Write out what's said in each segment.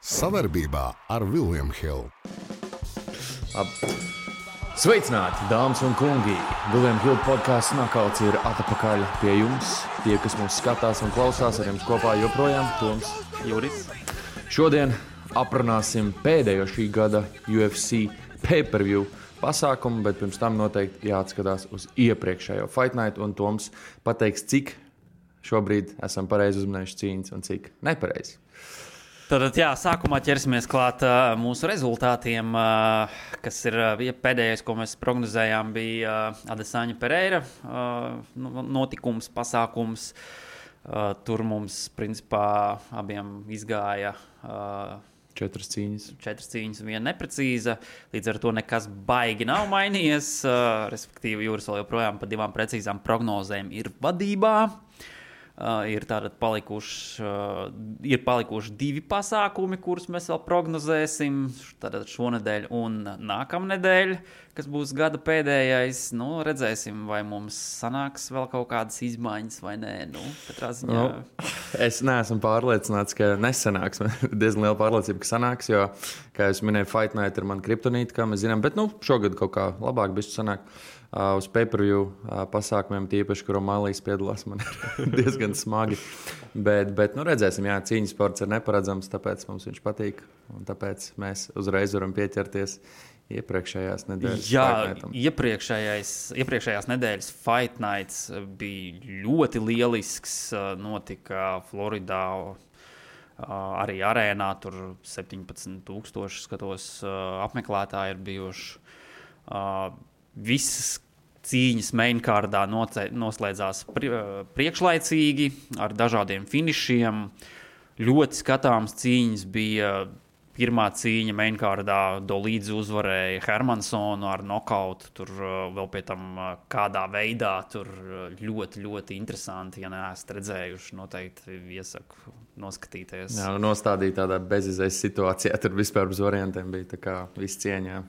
Savarbībā ar William Hill. Sveicināti, dāmas un kungi! William Hill podkāsts Nakauts ir atpakaļ pie jums. Tie, kas mūs skatās un klausās, ar jums kopā joprojām Toms, Juris. Šodien aprunāsim pēdējo šī gada UFC pay-per-view pasākumu, bet pirms tam noteikti jāatskatās uz iepriekšējo Fight Night, un Toms pateiks, cik šobrīd esam pareizi uzminējuši cīņas un cik nepareizi. Tad, sākumā ķersimies klāt mūsu rezultātiem, kas ir pēdējais, ko mēs prognozējām, bija Adesanya Pereira notikums, pasākums. Tur mums, principā, abiem izgāja 4 cīņas. 4 cīņas un 1 neprecīza. Līdz ar to nekas baigi nav mainījies. Respektīvi, Jūras vēl joprojām pa 2 precīzām prognozēm ir vadībā. Ir palikuši 2 pasākumi, kurus mēs vēl prognozēsim. Tātad šonedēļ un nākamnedēļ, kas būs gada pēdējais. Redzēsim, vai mums sanāks vēl kaut kādas izmaiņas vai nē. Katrā ziņā. Es neesmu pārliecināts, ka nesanāks. Diezgan liela pārliecība, ka sanāks, jo, kā jūs minējāt, Fight Night ir man kriptonīta, kā mēs zinām. Bet šogad kaut kā labāk bišķi sanāk. Uz pay-per-view pasākumiem, tīpaši, kur O'Malley's piedalās, man ir diezgan smagi. Bet redzēsim, cīņas sports ir neparedzams, tāpēc mums viņš patīk. Un tāpēc mēs uzreiz varam pieķerties iepriekšējās nedēļas Fight Nightam. Iepriekšējās nedēļas Fight Nights bija ļoti lielisks. Notika Floridā, arī arēnā. Tur 17,000 skatos apmeklētāji ir bijuši. Visas cīņas mainkārdā noslēdzās priekšlaicīgi ar dažādiem finišiem. Ļoti skatāms cīņas bija. Pirmā cīņa mainkārdā Dolīdze uzvarēja Hermansonu ar nokautu. Tur vēl pie tam kādā veidā tur ļoti, ļoti interesanti. Ja neesat redzējuši, noteikti iesaku noskatīties. Jā, nostādīja tādā bezizējas situācijā. Tur vispār bez variantiem bija tā kā viss cieņā.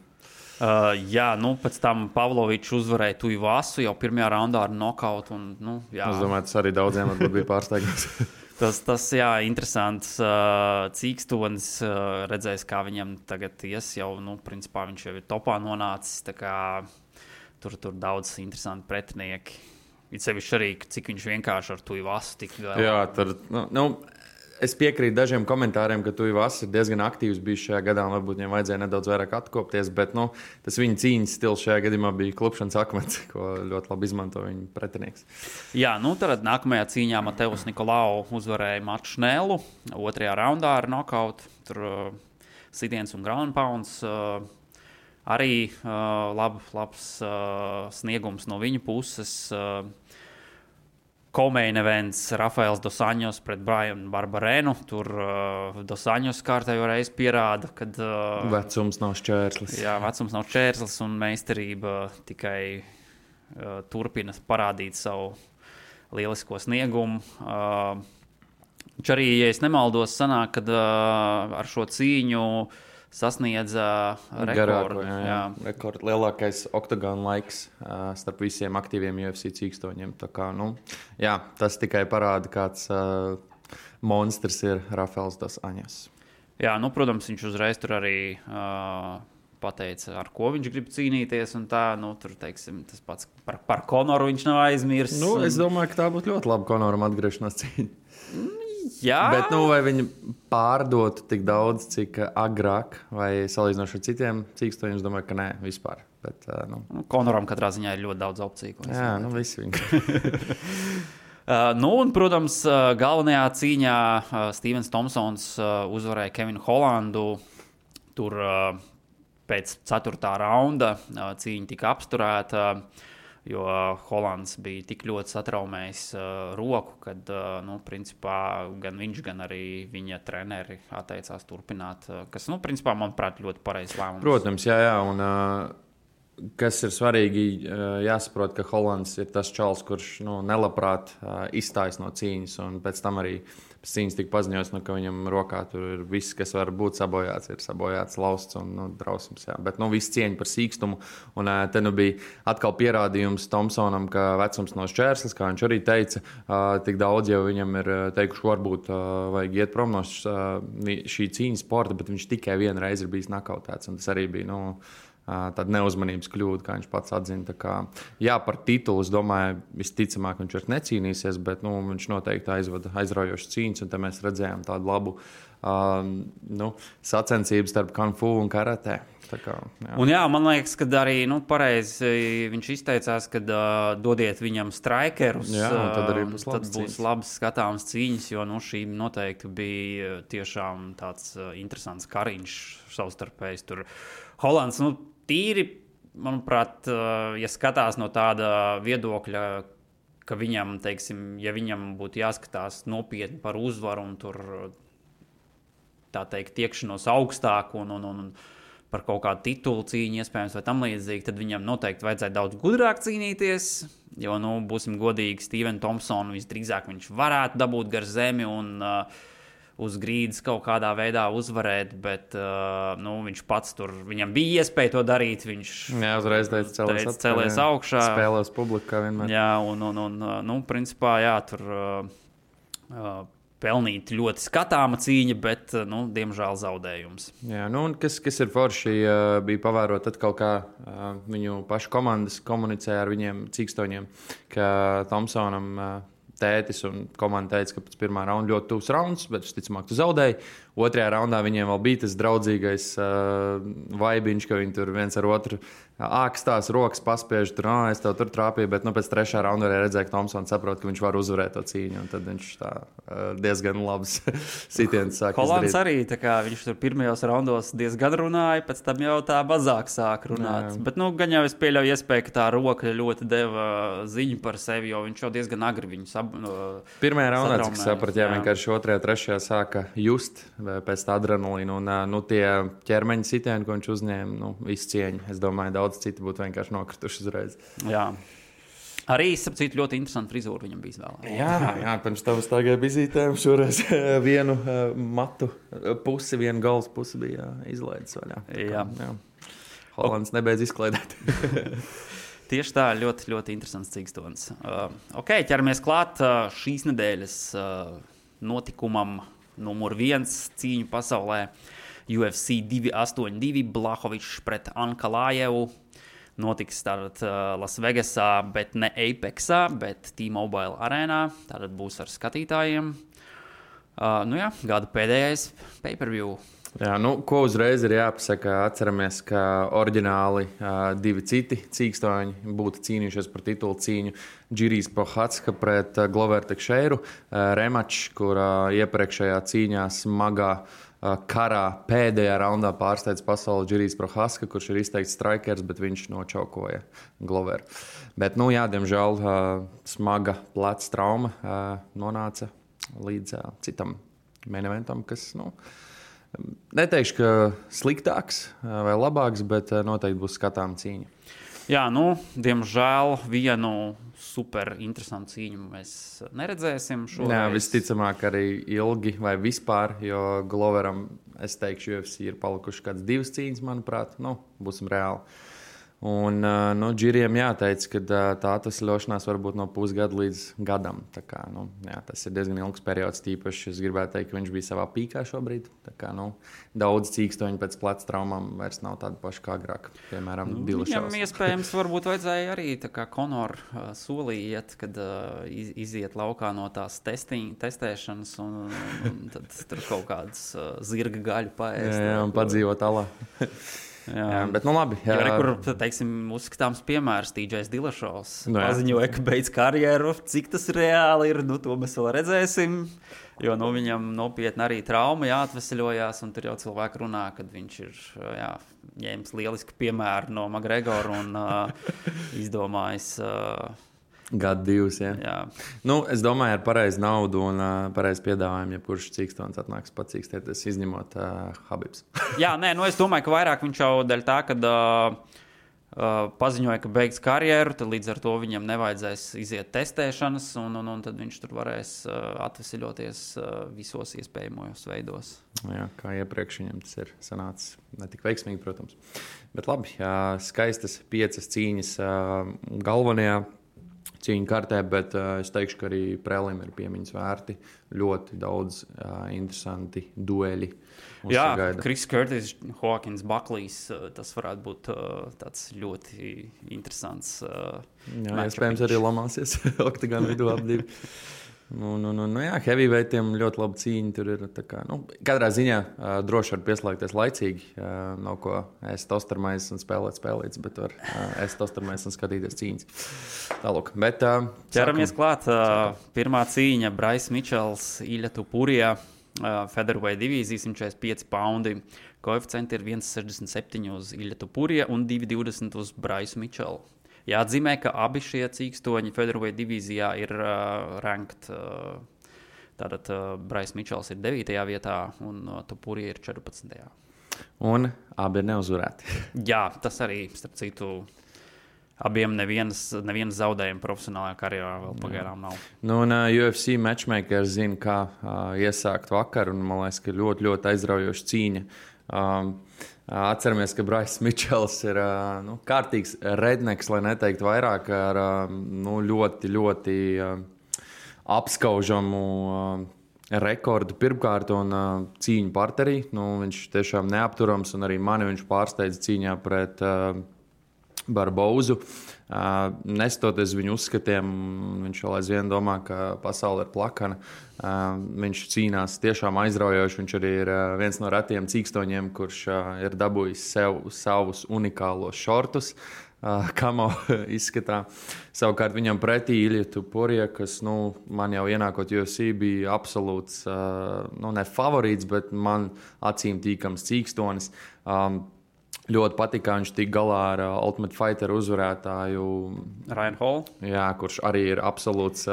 Pēc tam Pavlovičs uzvarēja Tuivasu jau pirmajā raundā ar nokautu. Es domāju, tas arī daudziem bija pārsteigums. tas interesants cīkstonis. Redzēs, kā viņam tagad ies jau, principā viņš jau ir topā nonācis. Tā kā tur daudz interesanti pretinieki. It sevišķi arī, cik viņš vienkārši ar Tuivasu tik galā. Jā, tur, es piekrītu dažiem komentāriem, ka Tuivas ir diezgan aktīvs bijis šajā gadā, un varbūt viņam vajadzēja nedaudz vairāk atkopties, bet tas viņa cīņas stils šajā gadījumā bija klupšanas akmens, ko ļoti labi izmanto viņa pretinieks. Jā, tad nākamajā cīņā Mateus Nikolau uzvarēja Matu Šnēlu 2. raundā ar nokautu. Tur sitiens un ground pounds. Arī labs sniegums no viņa puses. Co-main events Rafaels Dos Anjos pret Brian Barberenu. Tur Dos Anjos kārtējo reizi pierāda, ka vecums nav šķērslis. Jā, vecums nav šķērslis un meistarība tikai turpina parādīt savu lielisko sniegumu. Viņš arī, ja es nemaldos, sanāk, kad ar šo cīņu sasniedza rekordu. Rekords lielākais oktagona laiks starp visiem aktīviem UFC cīkstoņiem. Tā kā, tas tikai parāda, kāds monstrs ir Rafaels Dos Anjos. Jā, protams, viņš uzreiz tur arī pateica, ar ko viņš grib cīnīties. Un tā, tur, teiksim, tas pats par Konoru viņš nav aizmirsis. Es domāju, ka tā būtu ļoti laba Konoram atgriešanās cīņa. Jā. Bet vai viņi pārdotu tik daudz, cik agrāk, vai salīdzinoši ar citiem cīkstoņiem, es domāju, ka nē, vispār. Bet, Konoram katrā ziņā ir ļoti daudz opciju. Jā, visi viņi. Un, protams, galvenajā cīņā Stevens Thompsons uzvarēja Kevinu Hollandu. Tur pēc 4. raunda cīņa tika apsturēta. Jo Hollands bija tik ļoti satraumējis roku, kad, principā, gan viņš, gan arī viņa treneri atteicās turpināt, kas, principā, manuprāt, ļoti pareizs lēmums. Protams, jā, un kas ir svarīgi, jāsaprot, ka Hollands ir tas čals, kurš nelabprāt izstājas no cīņas, un pēc tam arī cīņas tika paziņots, ka viņam rokā tur ir viss, kas var būt sabojāts, ir sabojāts lausts un drausmas. Jā. Bet viss cieņa par sīkstumu. Un te bija atkal pierādījums Thompsonam, ka vecums nav šķērslis, kā viņš arī teica. Tik daudz jau viņam ir teikuši, varbūt vajag iet prom no šī cīņas sporta, bet viņš tikai vienu reizi ir bijis nakautēts. Un tas arī bija tāda neuzmanības kļūda, kā viņš pats atzina. Jā, par titulu, es domāju, visticamāk viņš vairs necīnīsies, bet viņš noteikti aizvada aizraujošas cīņas, un te mēs redzējām tādu labu sacensību starp Kung Fu un karatē. Un man liekas, ka arī pareizi viņš izteicās, ka dodiet viņam strikerus, tad būs labas skatāmas cīņas, jo šī noteikti bija tiešām tāds interesants kariņš savstarpējs. Tur Holands, tīri, manuprāt, ja skatās no tāda viedokļa, ka viņam, teiksim, ja viņam būtu jāskatās nopietni par uzvaru un tur, tā teikt, tiekšanos augstāk un par kaut kādu titulu cīņu, iespējams, vai tam līdzīgi, tad viņam noteikti vajadzētu daudz gudrāk cīnīties, jo, būsim godīgi, Steven Thompson visdrīzāk viņš varētu dabūt gar zemi un uz grīdas kaut kādā veidā uzvarēt, bet viņš pats tur, viņam bija iespēja to darīt, viņš uzreiz teica celies augšā. Spēlēs publiku, kā vienmēr. Jā, un principā, tur pelnīt ļoti skatāma cīņa, bet, diemžēl zaudējums. Jā, un kas ir forši, bija pavērot atkal, kā viņu pašu komandas komunicē ar viņiem cīkstoņiem, ka Thompsonam tētis un komanda teica, ka pēc pirmā raunda ļoti tuvs rauns, bet visticamāk tu zaudēji. Otrajā raundā viņiem vēl bija tas draudzīgais vaibiņš, ka viņi tur viens ar otru ākstās rokas paspiež, tur, es tev tur trāpīju, bet pēc trešā raunda arī redzēja, ka Thompsons saprot, ka viņš var uzvarēt to cīņu, un tad viņš tā diezgan labs sitiens sāk izdarīt. Holands arī, tā kā viņš tur pirmajos raundos diezgan runāja, pēc tam jau tā mazāk sāk runāt. Jā. Bet, gan jau es pieļauju iespēju, ka tā roka ļoti deva ziņu par sevi, jo viņš jau diezgan agri viņu pirmajā raundā, cik saprat, vienkārši otrajā, trešajā sāka just pēc tā adrenalīna, un tie ķermeņa sitieni, ko viņš uzņēma, visu cieņu. Es domāju, daudz citi būtu vienkārši nokrituši uzreiz. Jā. Arī, sapcīt, ļoti interesanti frizūra viņam bija izvēlēta. Jā, pirms tam stāvēja vizītēm, šoreiz vienu matu pusi, vienu galvas pusi bija izlaidis vaļā. Jā. Holands nebeidz izklaidēt. Tieši tā, ļoti, ļoti interesants cīkstons. Ķeramies klāt šīs nedēļas notikumam numur 1 cīņu pasaulē. UFC 282 Blachowicz pret Ankalajevu. Notiks tātad Lasvegasā, bet ne Apexā, bet T-Mobile arēnā. Tātad būs ar skatītājiem. Gada pēdējais pay-per-view. Jā, ko uzreiz ir jāpasaka, atceramies, ka oriģināli divi citi cīkstoņi būtu cīnījušies par titulu cīņu. Džirijs Prohatska pret Glover Tekšeiru. Remačs, kur iepriekšējā cīņā smagā karā pēdējā raundā pārsteidz pasauli Džirijs Prohatska, kurš ir izteikts strikers, bet viņš nočaukoja Gloveru. Bet, diemžēl smaga pleca trauma nonāca līdz citam main eventam, kas, neteikšu, ka sliktāks vai labāks, bet noteikti būs skatām cīņa. Jā, diemžēl vienu super interesantu cīņu mēs neredzēsim šoreiz. Jā, visticamāk arī ilgi vai vispār, jo Gloveram, es teikšu, UFC ir palikuši kāds 2 cīņas, manuprāt, būsim reāli. Un Džiriem jāteic, ka tā atvesļošanās var būt no pusgada līdz gadam. Tā kā, tas ir diezgan ilgs periods, tīpaši es gribētu teikt, ka viņš bija savā pīkā šobrīd. Tā kā, daudz cīkstoņi pēc pleca traumām vairs nav tādi paši kā agrāk, piemēram, Dillashaws. Viņam iespējams varbūt vajadzēja arī tā kā Conor solī iet, kad iziet laukā no tās testēšanas un tad tur kaut kādas zirga gaļu paēst. Jā, un padzīvot alā. Jā, bet labi. Jā, kur, teiksim, uzskatāms piemērs TJs Dillashaws. Paziņoja, ka beidz karjeru. Cik tas reāli ir, to mēs vēl redzēsim. Jo viņam nopietni arī trauma jāatveseļojās, un tur jau cilvēki runā, kad viņš ir ņēmis lielisku piemēru no McGregora un izdomājis... Gadu 2, jā. Es domāju, ar pareizu naudu un pareizu piedāvājumu, ja kurš cīkstons atnāks pacīkstēties, izņemot Habibs. Jā, es domāju, ka vairāk viņš jau dēļ tā, kad paziņoja, ka beigs karjeru, tad līdz ar to viņam nevajadzēs iziet testēšanas, un tad viņš tur varēs atvesļoties visos iespējamajos veidos. Jā, kā iepriekš viņam tas ir sanācis. Ne tik veiksmīgi, protams. Bet labi, skaistas 5 cīņas galvenajā cīņu kartē, bet es teikšu, ka arī prelim ir piemiņas vērti. Ļoti daudz interesanti dueļi. Jā, Chris Curtis, Hawkins, Buckley's, tas varētu būt tāds ļoti interesants jā, iespējams arī lamāsies oktagonu vidū ap 2. Jā, heavyweightiem ļoti laba cīņa. Tur ir tā kā, katrā ziņā droši var pieslēgties laicīgi. Nav ko ēst tostermais un spēlēt, bet var ēst tostermais un skatīties cīņas. Tālūk, bet ķeramies klāt. Pirmā cīņa Bryce Mitchells, Ilja Topuria. Featherweight divīzija 145 poundi. Koeficienti ir 1,67 uz Ilja Topuria un 2,20 uz Bryce Mitchellu. Jāatzīmē, ka abi šie cīkstoņi Featherweight divīzijā ir ranked. Tātad Bryce Mitchells ir 9. vietā un Topuria ir 14. Un abi ir neuzvarēti. Jā, tas arī, starp citu, abiem nevienas zaudējuma profesionālajā karjerā vēl pagaidām nav. UFC matchmaker zina, kā iesākt vakaru, un man liekas, ka ļoti, ļoti aizraujoša cīņa. Atceramies, ka Bryce Mitchells ir kārtīgs redneks, lai neteiktu vairāk, ar ļoti, ļoti apskaužamu rekordu pirmkārt un cīņu parterī. Viņš tiešām neapturams, un arī mani viņš pārsteidza cīņā pret Barbozu. Nestoties viņu uzskatiem, viņš vēl aizvien domā, ka pasaule ir plakana. Viņš cīnās tiešām aizraujoši. Viņš arī ir viens no retiem cīkstoņiem, kurš ir dabūjis sev savus unikālos šortus, kamo izskatā. Savukārt viņam pretī Ilja Topuria, kas man jau ienākot UFC bija absolūts, ne favorīts, bet man acīm tīkams cīkstonis. Ļoti patīk, kā viņš tika galā ar Ultimate Fighter uzvarētāju Ryan Hall. Jā, kurš arī ir absolūts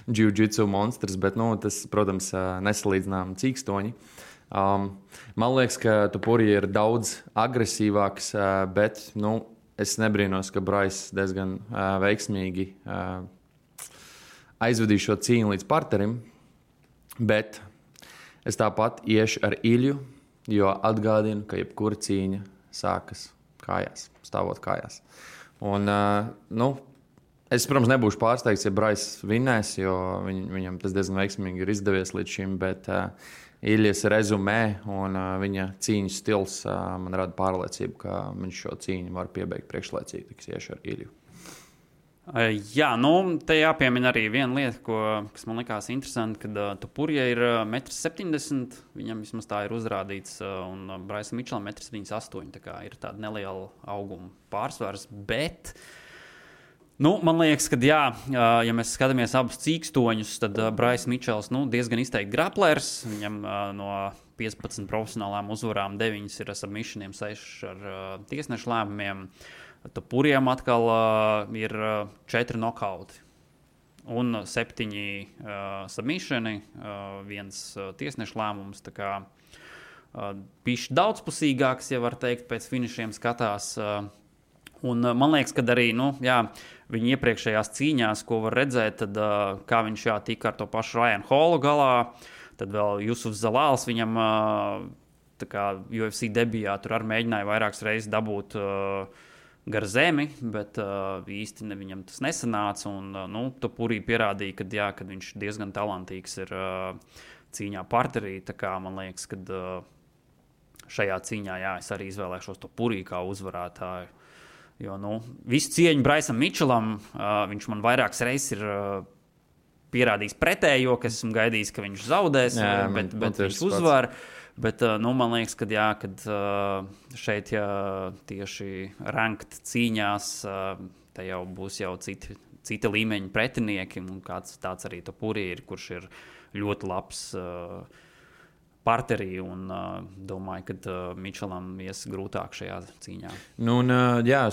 jiu-jitsu monstrs, bet tas, protams, nesalīdzinām cīkstoņi. Man liekas, ka Topuria ir daudz agresīvāks, bet es nebrīnos, ka Bryce diezgan veiksmīgi aizvedīja šo cīņu līdz parterim, bet es tāpat iešu ar Ilju, jo atgādinu, ka jebkura cīņa sākas kājās, stāvot kājās. Un, es, protams, nebūšu pārsteigts, ja Bryce vinnēs, jo viņam tas diezgan veiksmīgi ir izdevies līdz šim, bet Iljas rezumē un viņa cīņas stils man rada pārliecību, ka viņš šo cīņu var piebeigt priekšlaicīgi, tiks iešu ar Ilju. Jā, te jāpiemina arī viena lieta, kas man likās interesanti, kad Topuria ir 1,70 m, viņam vismaz tā ir uzrādīts, un Bryce Mitchellam 1,78 m, tā kā ir tāda neliela auguma pārsvars, bet, man liekas, ka jā, ja mēs skatāmies abus cīkstoņus, tad Bryce Mitchells, diezgan izteikti graplers, viņam no 15 profesionālām uzvarām 9 ir ar submissioniem, 6 ar tiesnešu lēmumiem. Topuriam atkal ir 4 nokauti un 7 submissioni, 1 tiesnešu lēmums. Tā kā bišķi daudzpusīgāks, ja var teikt, pēc finišiem skatās. Un man liekas, ka arī viņa iepriekšējās cīņās, ko var redzēt, tad kā viņš tika ar to pašu Ryan Hallu galā, tad vēl Jusufs Zalāls viņam tā kā UFC debijā tur arī mēģināja vairākas reizes dabūt gar zemi, bet īsti viņam tas nesanāca. Un, Topuria pierādīja, ka viņš diezgan talantīgs ir cīņā parterī. Tā kā man liekas, ka šajā cīņā es arī izvēlēšos Topuria kā uzvarētāju. Jo visu cieņu Bryceam Mitchellam, viņš man vairākas reizes ir pierādījis pretējo, ka esmu gaidījis, ka viņš zaudēs, bet viņš uzvar. Bet man liekas, kad šeit tieši ranked cīņās, te jau būs cita līmeņa pretinieki, un kāds tāds arī Topuria ir, kurš ir ļoti labs parterī, un domāju, ka Mitchellam ies grūtāk šajā cīņā.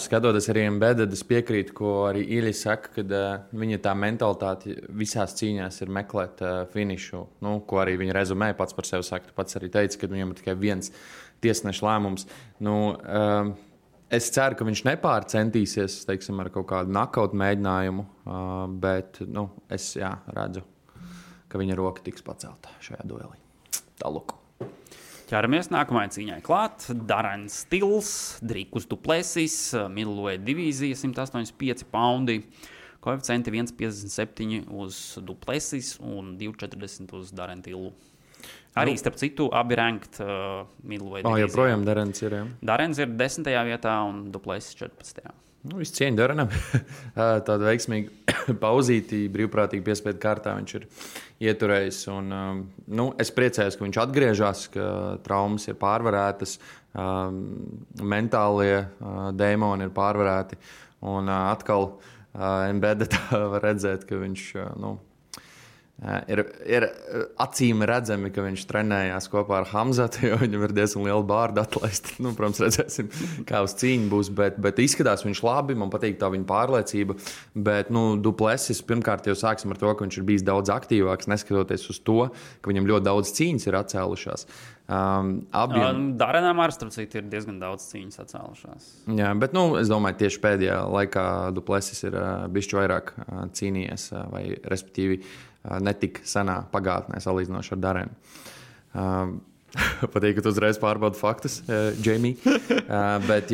Skatoties arī Embedded, es piekrītu, ko arī Ilja saka, kad viņa tā mentalitāte visās cīņās ir meklēt finišu, ko arī viņa rezumē pats par sevi saka. Pats arī teica, ka viņam ir tikai viens tiesneša lēmums. es ceru, ka viņš nepārcentīsies, teiksim, ar kaut kādu knockout mēģinājumu, bet, es redzu, ka viņa roka tiks pacelta šajā duelī. Tālāk. Ķeramies nākamajai cīņai klāt. Darens Tils, Drīkus Duplessis, middleweight divīzija, 185 poundi. Koeficienti 1,57 uz Duplessis un 2,40 uz Darenu Tilu. Arī, starp citu, abi ranked middleweight divīzijā. Joprojām Darens ir, jā. Darens ir 10. vietā un Duplessis 14. Viss cieņa Darenam. Tāda veiksmīga pauzīti, brīvprātīgi piespiedu kārtā viņš ir ieturējis. Un, es priecājos, ka viņš atgriežas, ka traumas ir pārvarētas, mentālie dēmoni ir pārvarēti. Un atkal Embedded var redzēt, ka viņš ir acīm redzami, ka viņš trenējās kopā ar Hamzatu, jo viņam ir diezgan liela bārda atlaista. Protams, redzēsim, kā uz cīņu būs, bet izskatās viņš labi, man patīk tā viņa pārliecība. Bet Duplessis pirmkārt jau sāksim ar to, ka viņš ir bijis daudz aktīvāks, neskatoties uz to, ka viņam ļoti daudz cīņas ir atcēlušās. Darenam ar starp citu ir diezgan daudz cīņas atcēlušās. Jā, bet es domāju, tieši pēdējā laikā Duplessis ir bišķi vairāk cīnījies, vai respektīvi netik senā pagātnē salīdzinoši ar Darenu. Patīk, ka tu uzreiz pārbaudi faktus, Jamie. Bet,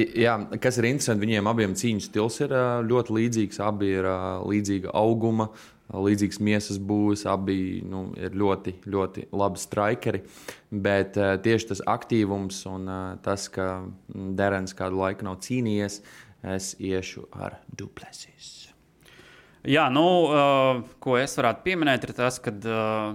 kas ir interesanti, viņiem abiem cīņu stils ir ļoti līdzīgs. Abi ir līdzīga auguma, līdzīgs miesas būvis, abi ir ļoti, ļoti labi strikeri. Bet tieši tas aktīvums un tas, ka Darens kādu laiku nav cīnījies, es iešu ar Duplessis. Jā, ko es varētu pieminēt, ir tas, ka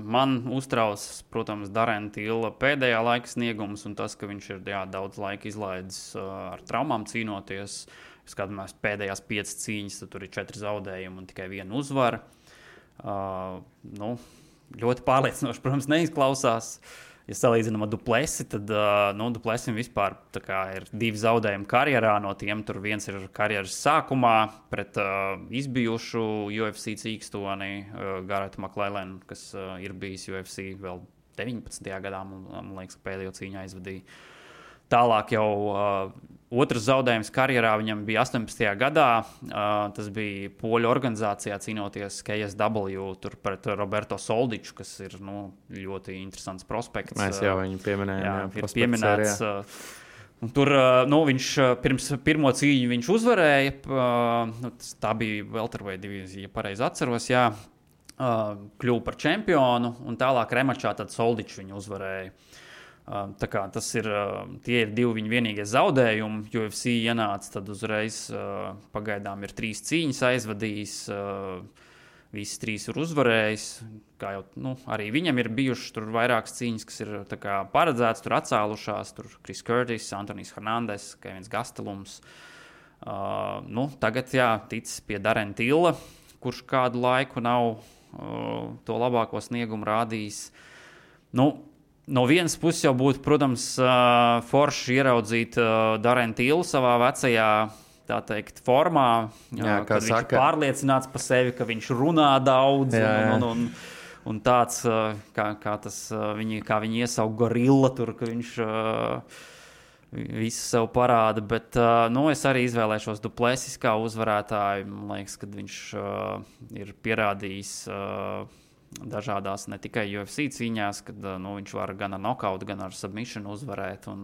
man uztrauc, protams, Darena Tila pēdējā laika sniegums un tas, ka viņš ir daudz laika izlaidis ar traumām cīnoties. Skatāmies pēdējās 5 cīņas, tad tur ir 4 zaudējumi un tikai 1 uzvara. Ļoti pārliecinoši, protams, neizklausās. Ja salīdzinām ar Duplessi, tad Duplessim vispār ir 2 zaudējumi karjerā. No tiem tur viens ir karjeras sākumā pret izbijušu UFC cīkstoni Garretu McLellanu, kas ir bijis UFC vēl 19. gadā. Man liekas, ka pēdējo cīņu aizvadīja. Tālāk jau otrs zaudējums karjerā viņam bija 18. gadā. Tas bija poļu organizācijā cīnoties KSW tur pret Roberto Soldiču, kas ir ļoti interesants prospekts. Mēs jau viņu pieminējām. Ir pieminēts. Tur viņš pirms pirmo cīņu viņš uzvarēja. Tā bija welterweight divīzija, ja pareizi atceros. Jā. Kļuva par čempionu un tālāk remačā tad Soldiču viņu uzvarēja. Tie ir 2 viņa vienīgie zaudējumi. UFC ienāca, tad uzreiz pagaidām ir 3 cīņas aizvadījis. Visas 3 ir uzvarējis. Kā jau arī viņam ir bijušas tur vairākas cīņas, kas ir paredzētas, tur atcēlušās. Tur Chris Curtis, Antonijs Hernandez, Kevins Gastelums. Tagad ticis pie Darena Tila, kurš kādu laiku nav to labāko sniegumu rādījis. No vienas puses jau būtu, protams, forši ieraudzīt Darenu Tilu savā vecajā, tā teikt, formā, kad viņš ir pārliecināts par sevi, ka viņš runā daudz un tāds, kā viņi iesauka gorilla tur, ka viņš visu sev parāda, bet es arī izvēlēšos Duplessis kā uzvarētāju. Man liekas, ka viņš ir pierādījis dažādās ne tikai UFC cīņās, kad viņš var gan ar knockout, gan ar submission uzvarēt. Un,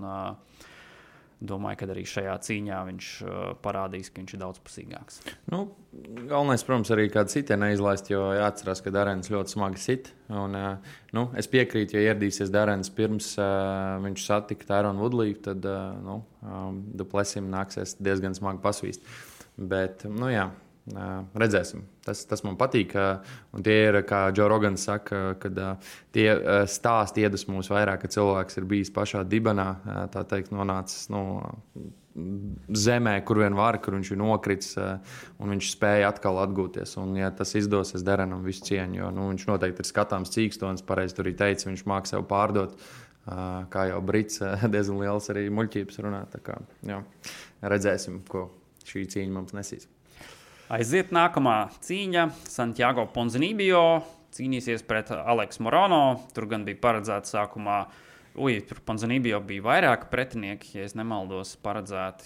domāju, ka arī šajā cīņā viņš parādīs, ka viņš ir daudzpusīgāks. Galvenais, protams, arī kādu sitienu neizlaist, jo jāatcerās, ka Darens ļoti smagi sit. Un, es piekrītu, ja ieradīsies Darens pirms viņš satika Tyrone Woodley, tad Duplessim nāksies diezgan smagi pasvīst. Bet, redzēsim. Tas man patīk. Un tie ir, kā Joe Rogans saka, kad tie stāsti iedvesmo mūs vairāk, ka cilvēks ir bijis pašā dibenā, tā teikt, nonācis zemē, kur vien var, kur viņš ir nokritis, un viņš spēja atkal atgūties. Un, ja tas izdosies, Darenam visu cieņu, jo viņš noteikti ir skatāms cīkstons, pareizi tur arī teica, viņš māk sev pārdot, kā jau brits, diezgan liels arī muļķības runā. Tā kā, redzēsim, ko šī cīņa mums nesīs. Aiziet nākamā cīņa. Santiago Ponzinibbio cīnīsies pret Aleksu Morono. Tur gan bija paredzēts sākumā, tur Ponzinibbio bija vairāki pretinieki, ja es nemaldos, paredzēti.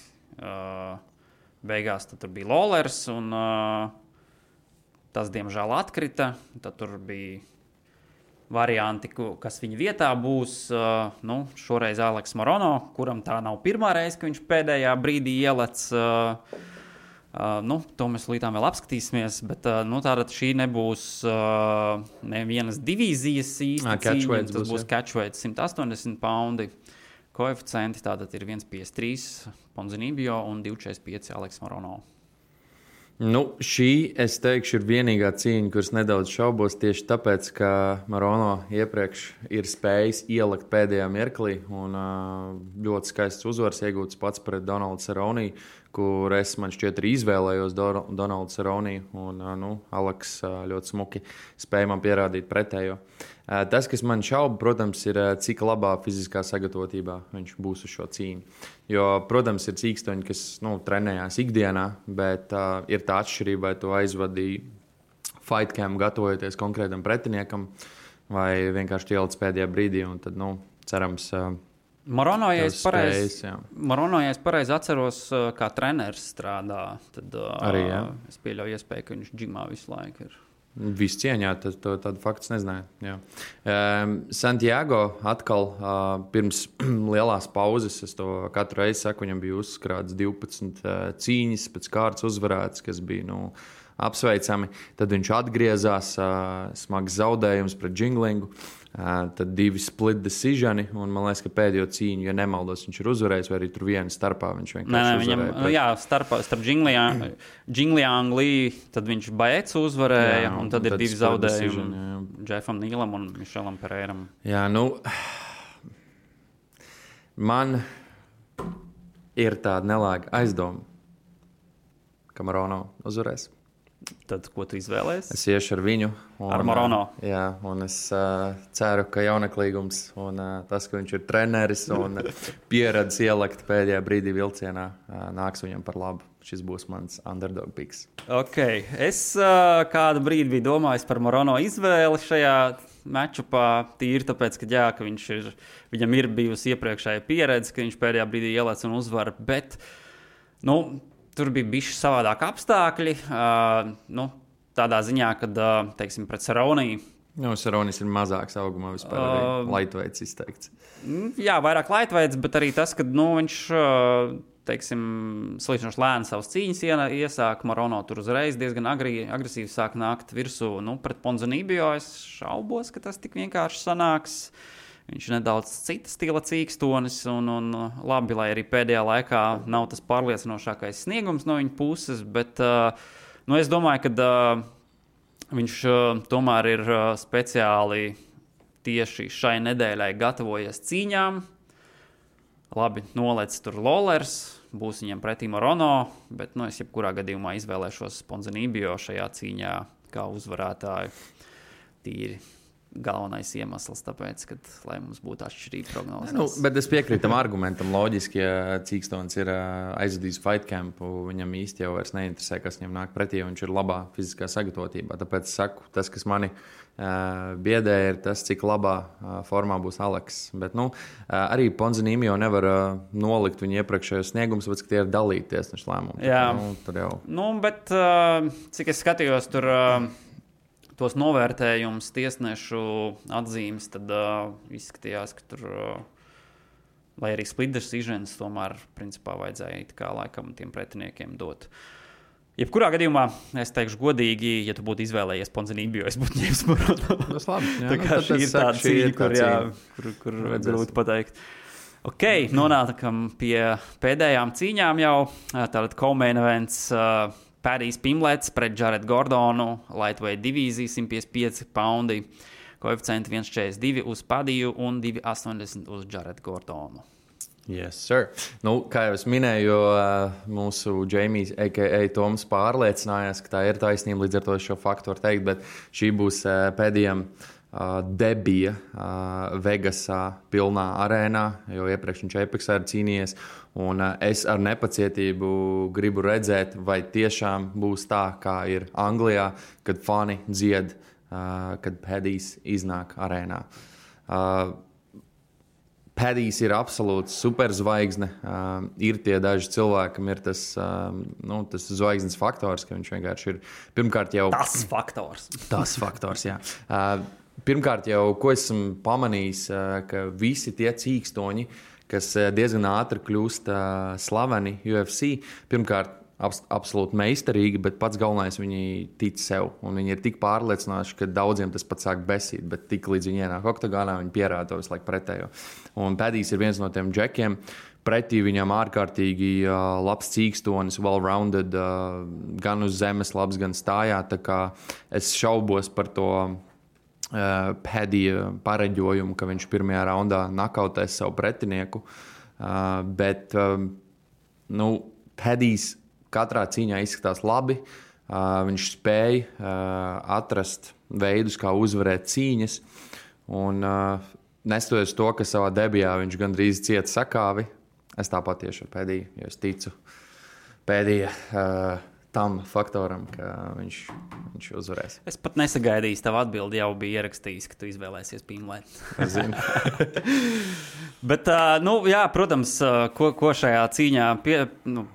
beigās tur bija Lawlers, un tas, diemžēl, atkrita. Tad tur bija varianti, kas viņa vietā būs. Šoreiz Aleks Morono, kuram tā nav pirmā reize, ka viņš pēdējā brīdī ielec. To mēs līdām vēl apskatīsimies, bet tātad šī nebūs nevienas divīzijas īsti cīņa. Tas būs catchweight 180 poundi. Koeficienti tātad ir 1,53 Ponzinibbio un 2,45 Aleks Morono. Šī, es teikšu, ir vienīgā cīņa, kuras nedaudz šaubos tieši tāpēc, ka Morono iepriekš ir spējis ielikt pēdējā mirklī un ļoti skaists uzvars iegūts pats pret Donaldu Cerrone, kur es man šķiet arī izvēlējos Donaldu Cerrone, un Aleks ļoti smuki spēja man pierādīt pretējo. Tas, kas man šauba, protams, ir, cik labā fiziskā sagatavotībā viņš būs uz šo cīņu. Jo, protams, ir cīkstoņi, kas trenējās ikdienā, bet ir tā atšķirība, vai tu aizvadīji fight camp gatavojoties konkrētam pretiniekam, vai vienkārši ielic pēdējā brīdī, un tad, cerams, Morono, ja es pareizi atceros, kā treneris strādā, tad arī, es pieļauju iespēju, ka viņš džimā visu laiku ir. Viss cieņā, tādu faktu nezināju. Santiago atkal pirms lielās pauzes, es to katru reizi saku, viņam bija uzkrāts 12 cīņas, pēc kārtas uzvarētas, kas bija apsveicami. Tad viņš atgriezās, smags zaudējums pret Jinglingu, tad 2 split decisioni, un man liekas, ka pēdējo cīņu, ja nemaldos, viņš ir uzvarējis, vai arī tur viena starpā viņš vienkārši uzvarēja. Starp Jingliang Li, tad viņš Baecu uzvarēja, un tad ir 2 zaudējumi Jeffam Nīlam un Mišelam Pereiram. Man ir tāda nelāga aizdoma, ka Morono uzvarēs. Tad, ko tu izvēlējies? Es iešu ar viņu. Ar Morono. Jā, un es ceru, ka jaunaklīgums un tas, ka viņš ir treneris un pieredzes ielikt pēdējā brīdī vilcienā, nāks viņam par labu. Šis būs mans underdog picks. Ok, es kādu brīdi biju domājis par Morono izvēli šajā matchupā, tīri tāpēc, ka viņam ir bijusi iepriekšēja pieredze, ka viņš pēdējā brīdī ielēc un uzvar, bet, tur bija bišķi savādāk apstākļi, tādā ziņā, kad, teiksim, pret Cerrone. Cerronis ir mazāks augumā vispār, lightweights izteikts. Jā, vairāk lightweights, bet arī tas, ka, viņš, teiksim, salīdzinoši lēni savas cīņas iesāk, Morono tur uzreiz diezgan agresīvi sāk nākt virsū, pret Ponzinibbio es šaubos, ka tas tik vienkārši sanāks. Viņš ir nedaudz cita stila cīkstonis, un labi, lai arī pēdējā laikā nav tas pārliecinošākais sniegums no viņa puses, bet es domāju, ka viņš tomēr ir speciāli tieši šai nedēļai gatavojies cīņām. Labi, nolec tur Lawlers, būs viņam pretī Morono, bet es jebkurā gadījumā izvēlēšos Ponzinibbio šajā cīņā kā uzvarētāju tīri. Galvenais iemesls, tāpēc, lai mums būtu atšķirīga prognozes. Bet es piekrītu tam argumentam. Loģiski, ja cīkstons ir aizvadījis fight campu, viņam īsti jau vairs neinteresē, kas viņam nāk pretī, jo viņš ir labā fiziskā sagatavotībā. Tāpēc es saku, tas, kas mani biedē, ir tas, cik labā formā būs Aleks. Bet arī Ponzinibbio nevar nolikt viņu iepriekšējos sniegumus, tāpēc, ka tie ir dalīti tiesnešu lēmumi. Jā, tad jau. Bet cik es skatījos tur tos novērtējumus, tiesnešu atzīmes, tad izskatījās, ka tur, lai arī split decisions, tomēr principā vajadzēja it kā laikam tiem pretiniekiem dot. Jebkurā gadījumā, es teikšu godīgi, ja tu būtu izvēlējies Ponzinibbio, es būtu ņēmis Morono. Tas labi. Jā, tā kā šī ir tāda cīņa, kur grūti pateikt. Ok, nonākam pie pēdējām cīņām jau. Tātad co-main events Padijs Pimlets pret Jared Gordonu, lightweight divīzija, 155 poundi, koeficienti 1,42 uz Padiju un 2,80 uz Jared Gordonu. Yes, sir. Kā jau es minēju, mūsu Jamijs, a.k.a. Toms, pārliecinājās, ka tā ir taisnība, līdz ar to šo faktu var teikt, bet šī būs Padijam debija Vegasā pilnā arēnā, jo iepriekš viņš Apexā ir cīnījies. Un es ar nepacietību gribu redzēt, vai tiešām būs tā, kā ir Anglijā, kad fani dzied, kad Padijs iznāk arēnā. Padijs ir absolūts superzvaigzne. Ir tie daži cilvēkam, ir tas zvaigznes faktors, ka viņš vienkārši ir pirmkārt jau. Tas faktors, jā. Pirmkārt jau, ko esmu pamanījis, ka visi tie cīkstoņi, kas diezgan ātri kļūst slaveni UFC, pirmkārt, absolūti meistarīgi, bet pats galvenais viņi tic sev. Un viņi ir tik pārliecināti, ka daudziem tas pat sāk besīt, bet tik līdz viņi ienāk oktagonā, viņi pierāda to visu laiku pretējo. Un Padijs ir viens no tiem džekiem. Pretī viņam ārkārtīgi labs cīkstonis, well-rounded, gan uz zemes labs, gan stājā. Tā kā es šaubos par to Padija pareģojumu, ka viņš pirmajā raundā nakautēs savu pretinieku. Bet Padijs katrā cīņā izskatās labi. Viņš spēja atrast veidus, kā uzvarēt cīņas. Un nestoties to, ka savā debijā viņš gandrīz cieta sakāvi, es tāpat tieši ar Padiju, jo es ticu Padija tam faktoram, ka viņš uzvarēs. Es pat nesagaidīju, tavu atbildi jau bija ierakstījis, ka tu izvēlēsies Pīnlēt. Es zinu. Bet, protams, ko šajā cīņā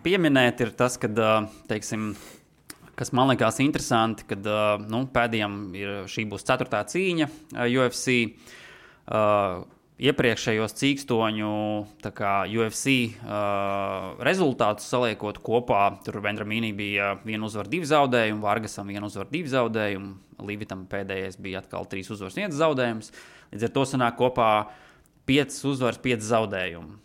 pieminēt, ir tas, ka, teiksim, kas man likās interesanti, kad Padijam šī būs 4. cīņa UFC. Iepriekšējos cīkstoņu UFC rezultātus saliekot kopā, tur Vendramīnī bija 1 uzvara 2 zaudējumi, Vargasam 1 uzvara 2 zaudējumi, Līvitam pēdējais bija atkal 3 uzvaras 1 zaudējums. Līdz ar to sanāk kopā 5 uzvaras 5 zaudējumi.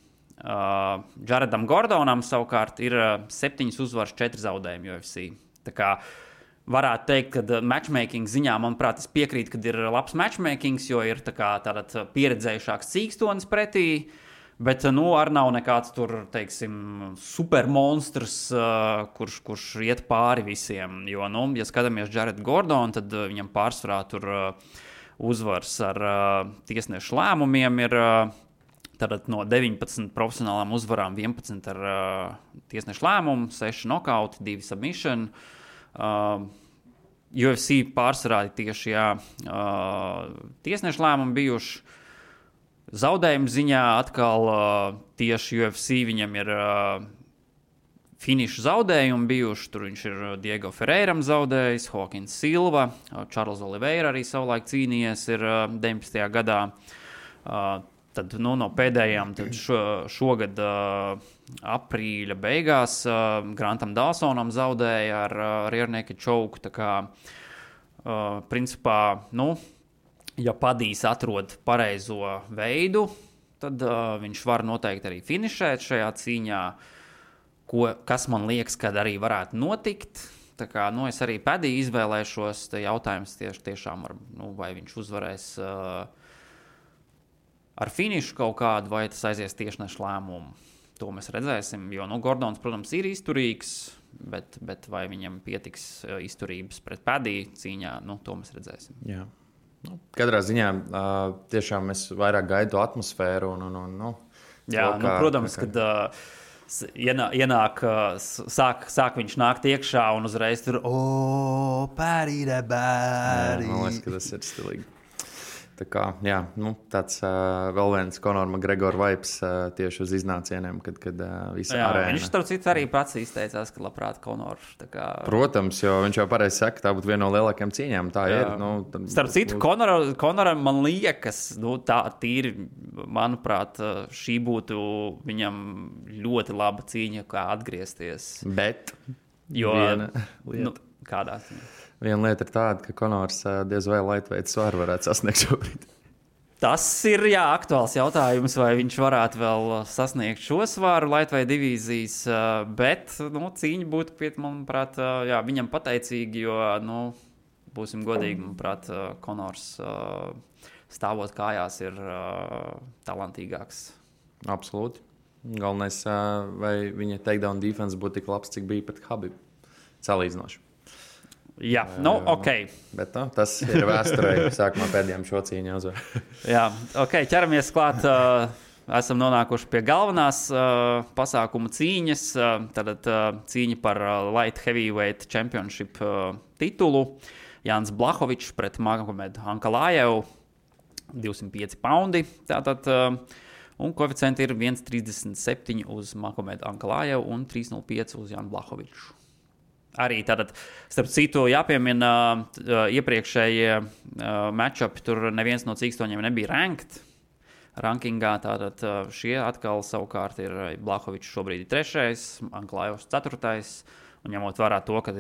Jaredam Gordonam savukārt ir 7 uzvaras 4 zaudējumi UFC. Tā kā varētu teikt, ka matchmaking ziņā, manuprāt, es piekrītu, ka ir labs matchmaking, jo ir tātad pieredzējušāks cīkstonis pretī, bet arī nav nekāds tur, teiksim, supermonstrs, kurš iet pāri visiem. Jo, ja skatāmies Jaredu Gordonu, tad viņam pārsvarā tur uzvars ar tiesnešu lēmumiem ir tātad no 19 profesionālām uzvarām 11 ar tiesnešu lēmumu, 6 nokauti, 2 submission. UFC pārsvarā tieši tiesnešu lēmumi bijuši. Zaudējumu ziņā atkal tieši UFC viņam ir finiša zaudējumi bijuši. Tur viņš ir Diego Ferreiram zaudējis, Hawkins Silva, Charles Oliveira arī savulaik cīnījies ir 19. gadā. Tad no pēdējām šogad aprīļa beigās Grantam Dawsonam zaudēja ar rear naked choke. Tā kā, principā, ja Padijs atrod pareizo veidu, tad viņš var noteikti arī finišēt šajā cīņā, kas man liekas, kad arī varētu notikt. Tā kā, es arī Padiju izvēlēšos, jautājums tiešām, vai viņš uzvarēs ar finišu kaut kādu, vai tas aizies tiešnešu lēmumu. To mēs redzēsim, jo Gordons, protams, ir izturīgs, bet vai viņam pietiks izturības pret Padiju cīņā, to mēs redzēsim. Jā. Katrā ziņā tiešām es vairāk gaidu atmosfēru. Jā, protams, kad ienāk, sāk viņš nākt iekšā un uzreiz tur Padija, Padija. Man liekas, ka tas ir stilīgi. Tā kā, jā, tāds vēl viens Conor McGregor vibes tieši uz iznācieniem, kad visa arēna. Viņš starp citu arī pats izteicās, ka labprāt Conor. Protams, jo viņš jau pareizi saka, tā būtu viena no lielākajām cīņām. Tā ir. Starp citu, Conoram man liekas, tā tīri, manuprāt, šī būtu viņam ļoti laba cīņa, kā atgriezties. Bet kādā cīņā? Viena lieta ir tāda, ka Conors diez vai lightweight svaru varētu sasniegt šobrīd. Tas ir aktuāls jautājums, vai viņš varētu vēl sasniegt šo svaru lightweight divīzijas, bet cīņa būtu, manuprāt, viņam pateicīgi, jo, būsim godīgi, manuprāt, Conors stāvot kājās ir talantīgāks. Absolūti. Galvenais, vai viņa takedown defense būtu tik labs, cik bija pret Khabib. Salīdzinoši. Jā, ok. Bet tas ir vēsturē, sākumā pēdējām šo cīņu uzvar. Jā, ok, ķeramies klāt. Esam nonākuši pie galvenās pasākuma cīņas. Tātad cīņa par Light Heavyweight Championship titulu. Jānis Blachowicz pret Magomedu Ankalajevu. 205 poundi. Tātad Un koeficienti ir 1,37 uz Mahomedu Ankalājevu un 3,05 uz Jānu Blahoviču. Arī tātad, starp citu, jāpiemina iepriekšējie matchupi, tur neviens no cīkstoņiem nebija ranked rankingā, tātad šie atkal savukārt ir Blahovičs šobrīd ir 3., Ankalājevs 4. Un ņemot vērā to, ka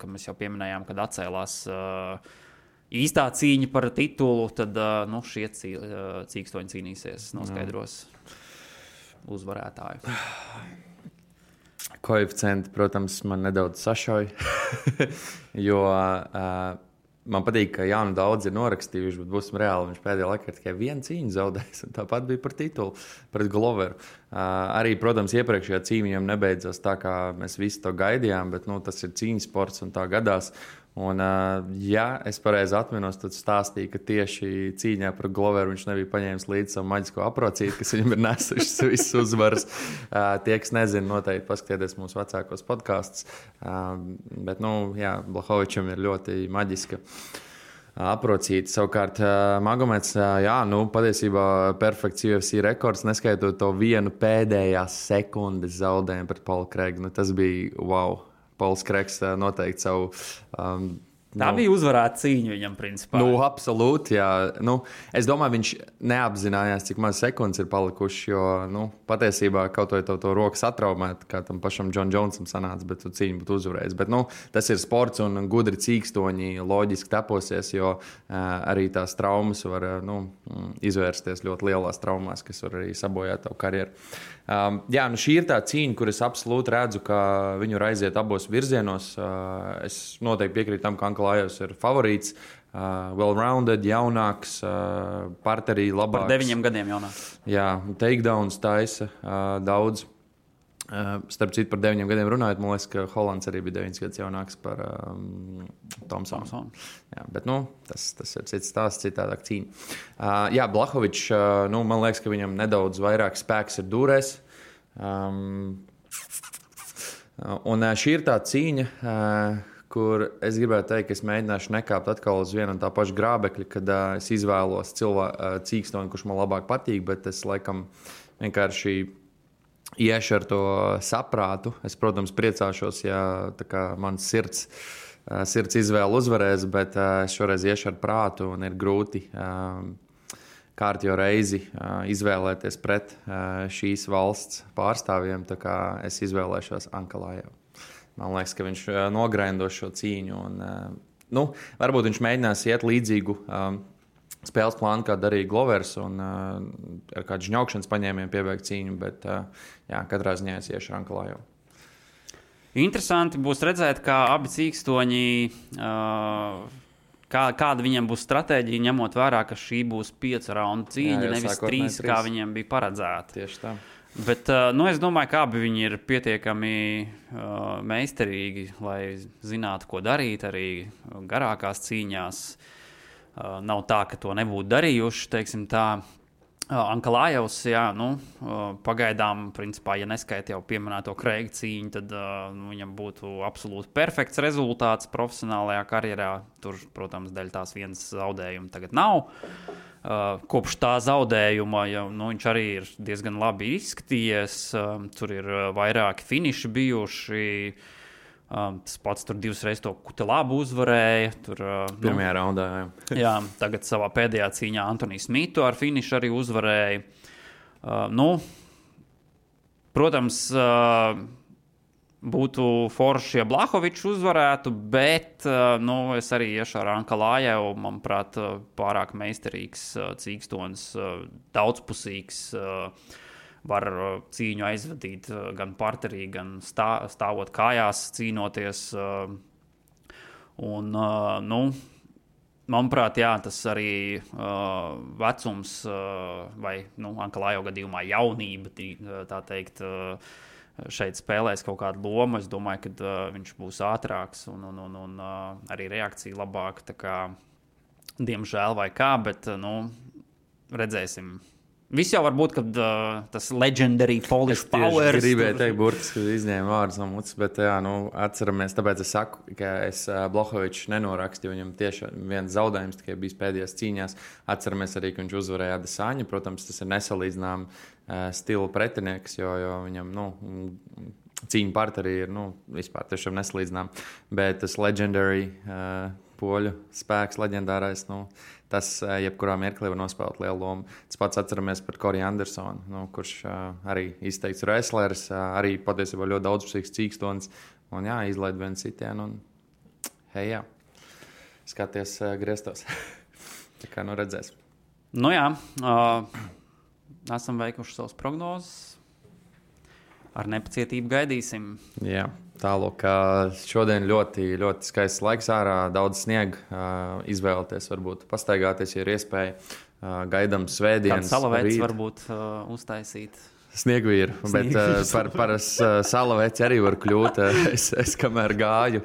mēs jau pieminējām, kad atcēlās īstā cīņa par titulu, tad šie cīkstoņi cīnīsies, noskaidros uzvarētāju. Koeficienti, protams, man nedaudz sašauja, jo man patīk, ka Jānu daudz ir norakstījuši, bet būsim reāli, viņš pēdējā laikā tikai vienu cīņu zaudējis, un tāpat bija par titulu, pret Gloveru. Arī, protams, iepriekšējā cīņa viņam nebeidzās tā, kā mēs visi to gaidījām, bet tas ir cīņas sports un tā gadās. Un, ja es pareizi atminos, tad stāstīja, ka tieši cīņā par Gloveru viņš nebija paņēmis līdzi savu maģisko aprocīti, kas viņam ir nesušas visas uzvaras. Tie, kas nezina, noteikti paskatieties mūsu vecākos podkastus. Bet, Blahovičam ir ļoti maģiska aprocīti. Savukārt, Magomeds, patiesībā perfekts UFC rekords, neskaitot to vienu pēdējās sekundes zaudējumu pret Paulu Kreigu. Tas bija wow. Pauls Kreigs noteikti savu... Tā bija uzvarēta cīņa viņam, principā. Absolūti, jā. Es domāju, viņš neapzinājās, cik maz sekundes ir palikuši, jo, patiesībā kaut vai to roku satraumēt, kā tam pašam John Jonesam sanāca, bet tu cīņu būtu uzvarējis. Bet, tas ir sports un gudri cīkstoņi loģiski teposies, jo arī tās traumas var, izvērsties ļoti lielās traumās, kas var arī sabojāt tavu karjeru. Šī ir tā cīņa, kur es absolūti redzu, ka viņu var aiziet abos virzienos. Es noteikti piekrītu tam, ka Ankalājevs ir favorīts, well-rounded, jaunāks, parterī labāks. Par 9 gadiem jaunāks. Jā, takedowns taisa daudz. Starp citu, par 9 gadiem runājot, man liekas, ka Holands arī bija 9 gadus jaunāks par Thompsonu. Jā, bet tas ir cits stāsts, citādāk cīņa. Blahovičs, man liekas, ka viņam nedaudz vairāk spēks ir dūrēs. Un šī ir tā cīņa, kur es gribētu teikt, ka es mēģināšu nekāpt atkal uz vienu un tā pašu grābekļa, kad es izvēlos cīkstoni, kurš man labāk patīk, bet es laikam vienkārši iešu ar to saprātu. Es, protams, priecāšos, ja mans sirds izvēle uzvarēs, bet es šoreiz iešu ar prātu un ir grūti kārtējo reizi izvēlēties pret šīs valsts pārstāvjiem. Tā kā es izvēlēšos Ankalājevu. Man liekas, ka viņš nograidos šo cīņu. Un, varbūt viņš mēģinās iet līdzīgu spēles plānu, kā darīja Glovers, un ar kādu žņaukšanas paņēmienu piebeigt cīņu, bet katrā ziņā es iešu ar Ankalājevu. Interesanti būs redzēt, kā abi cīkstoņi, kāda viņiem būs stratēģija, ņemot vērā, ka šī būs 5 raundu cīņa, nevis 3, kā viņiem bija paredzēta. Tieši tā. Bet es domāju, ka abi viņi ir pietiekami meistarīgi, lai zinātu, ko darīt arī garākās cīņās. Nav tā, ka to nebūtu darījuši, teiksim tā. Ankalājevs, pagaidām, principā, ja neskaita jau pieminēto Kreiga cīņu, tad viņam būtu absolūti perfekts rezultāts profesionālajā karjerā. Tur, protams, dēļ tās vienas zaudējuma tagad nav. Kopš tā zaudējuma viņš arī ir diezgan labi izskatījies. Tur ir vairāki finiši bijuši. Tas pats tur 2 reizes to Kutelābu uzvarēja. Pirmajā raundā, jā. Tagad savā pēdējā cīņā Antoniju Smitu ar finišu arī uzvarēja. Protams, būtu forši, ja Blahovičs uzvarētu, bet es arī iešu ar Ankalājevu. Manuprāt, pārāk meistarīgs cīkstonis, daudzpusīgs. Var cīņu aizvadīt gan parterī, gan stāvot kājās, cīnoties. Un, manuprāt, tas arī vecums vai Ankalājevu gadījumā jaunība, tā teikt, šeit spēlēs kaut kādu lomu. Es domāju, ka viņš būs ātrāks un arī reakcija labāka. Tā kā, diemžēl vai kā, bet redzēsim. Viss jau var būt, kad tas legendary Polish power. Es gribēju teikt, burtiski izņēmu vārdus no mutes, bet atceramies, tāpēc es saku, ka es Blohovičs nenorakstīju, viņam tieši viens zaudējums tikai bijis pēdējās cīņās. Atceramies arī, ka viņš uzvarēja Adesanya, protams, tas ir nesalīdzinām stila pretinieks, jo viņam, cīņa partnerī ir, vispār tiešām nesalīdzinām, bet tas legendary poļu spēks, leģendārais, tas jebkurā mirklī var nospēlēt lielu lomu. Tas pats atceramies par Corey Andersonu, kurš arī izteikts wrestleris, arī patiesībā ļoti daudzpusīgs cīkstonis, un izlaid vienu sitienu, un skaties griestos. Tā kā redzēs. Esam veikuši savas prognozes. Ar nepacietību gaidīsim. Jā, tālāk šodien ļoti, ļoti skaists laiks ārā, daudz sniega, izvēlēties, varbūt pastaigāties, ja ir iespēja. Gaidām svētdienas. Kāds salavēts varbūt uztaisīt. Sniegvīru, bet par salaveci arī var kļūt. Es kamēr gāju.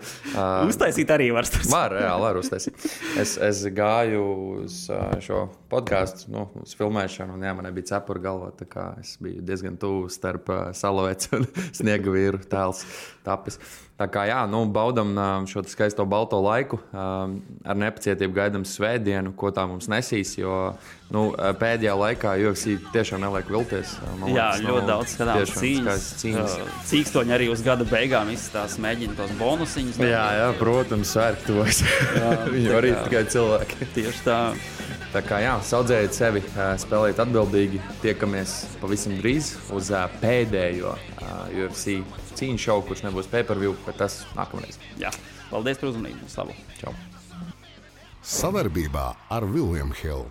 Uztaisīt arī var. Var uztaisīt. Es gāju uz šo podcastu, uz filmēšanu, un man nebija cepura galvā, tā kā es biju diezgan tuvu starp salaveci un Sniegvīru tēls tapis. Tā kā baudam šo skaisto balto laiku, ar nepacietību gaidām svētdienu, ko tā mums nesīs, jo pēdējā laikā UFC tiešām neliek vilties. Ļoti daudz skatāms cīņas. Cīkstoņi arī uz gada beigām izstās mēģina tos bonusiņus. Jā, protams, sērk tos. Viņi arī tikai cilvēki. Tieši tā. Tā kā saudzējiet sevi, spēlējiet atbildīgi, tiekamies pavisam drīz uz pēdējo UFC cīņu šovu, kurš nebūs pay-per-view, bet tas nākamreiz. Jā, paldies par uzmanību. Slavu. Čau. Savarbībā ar William Hill.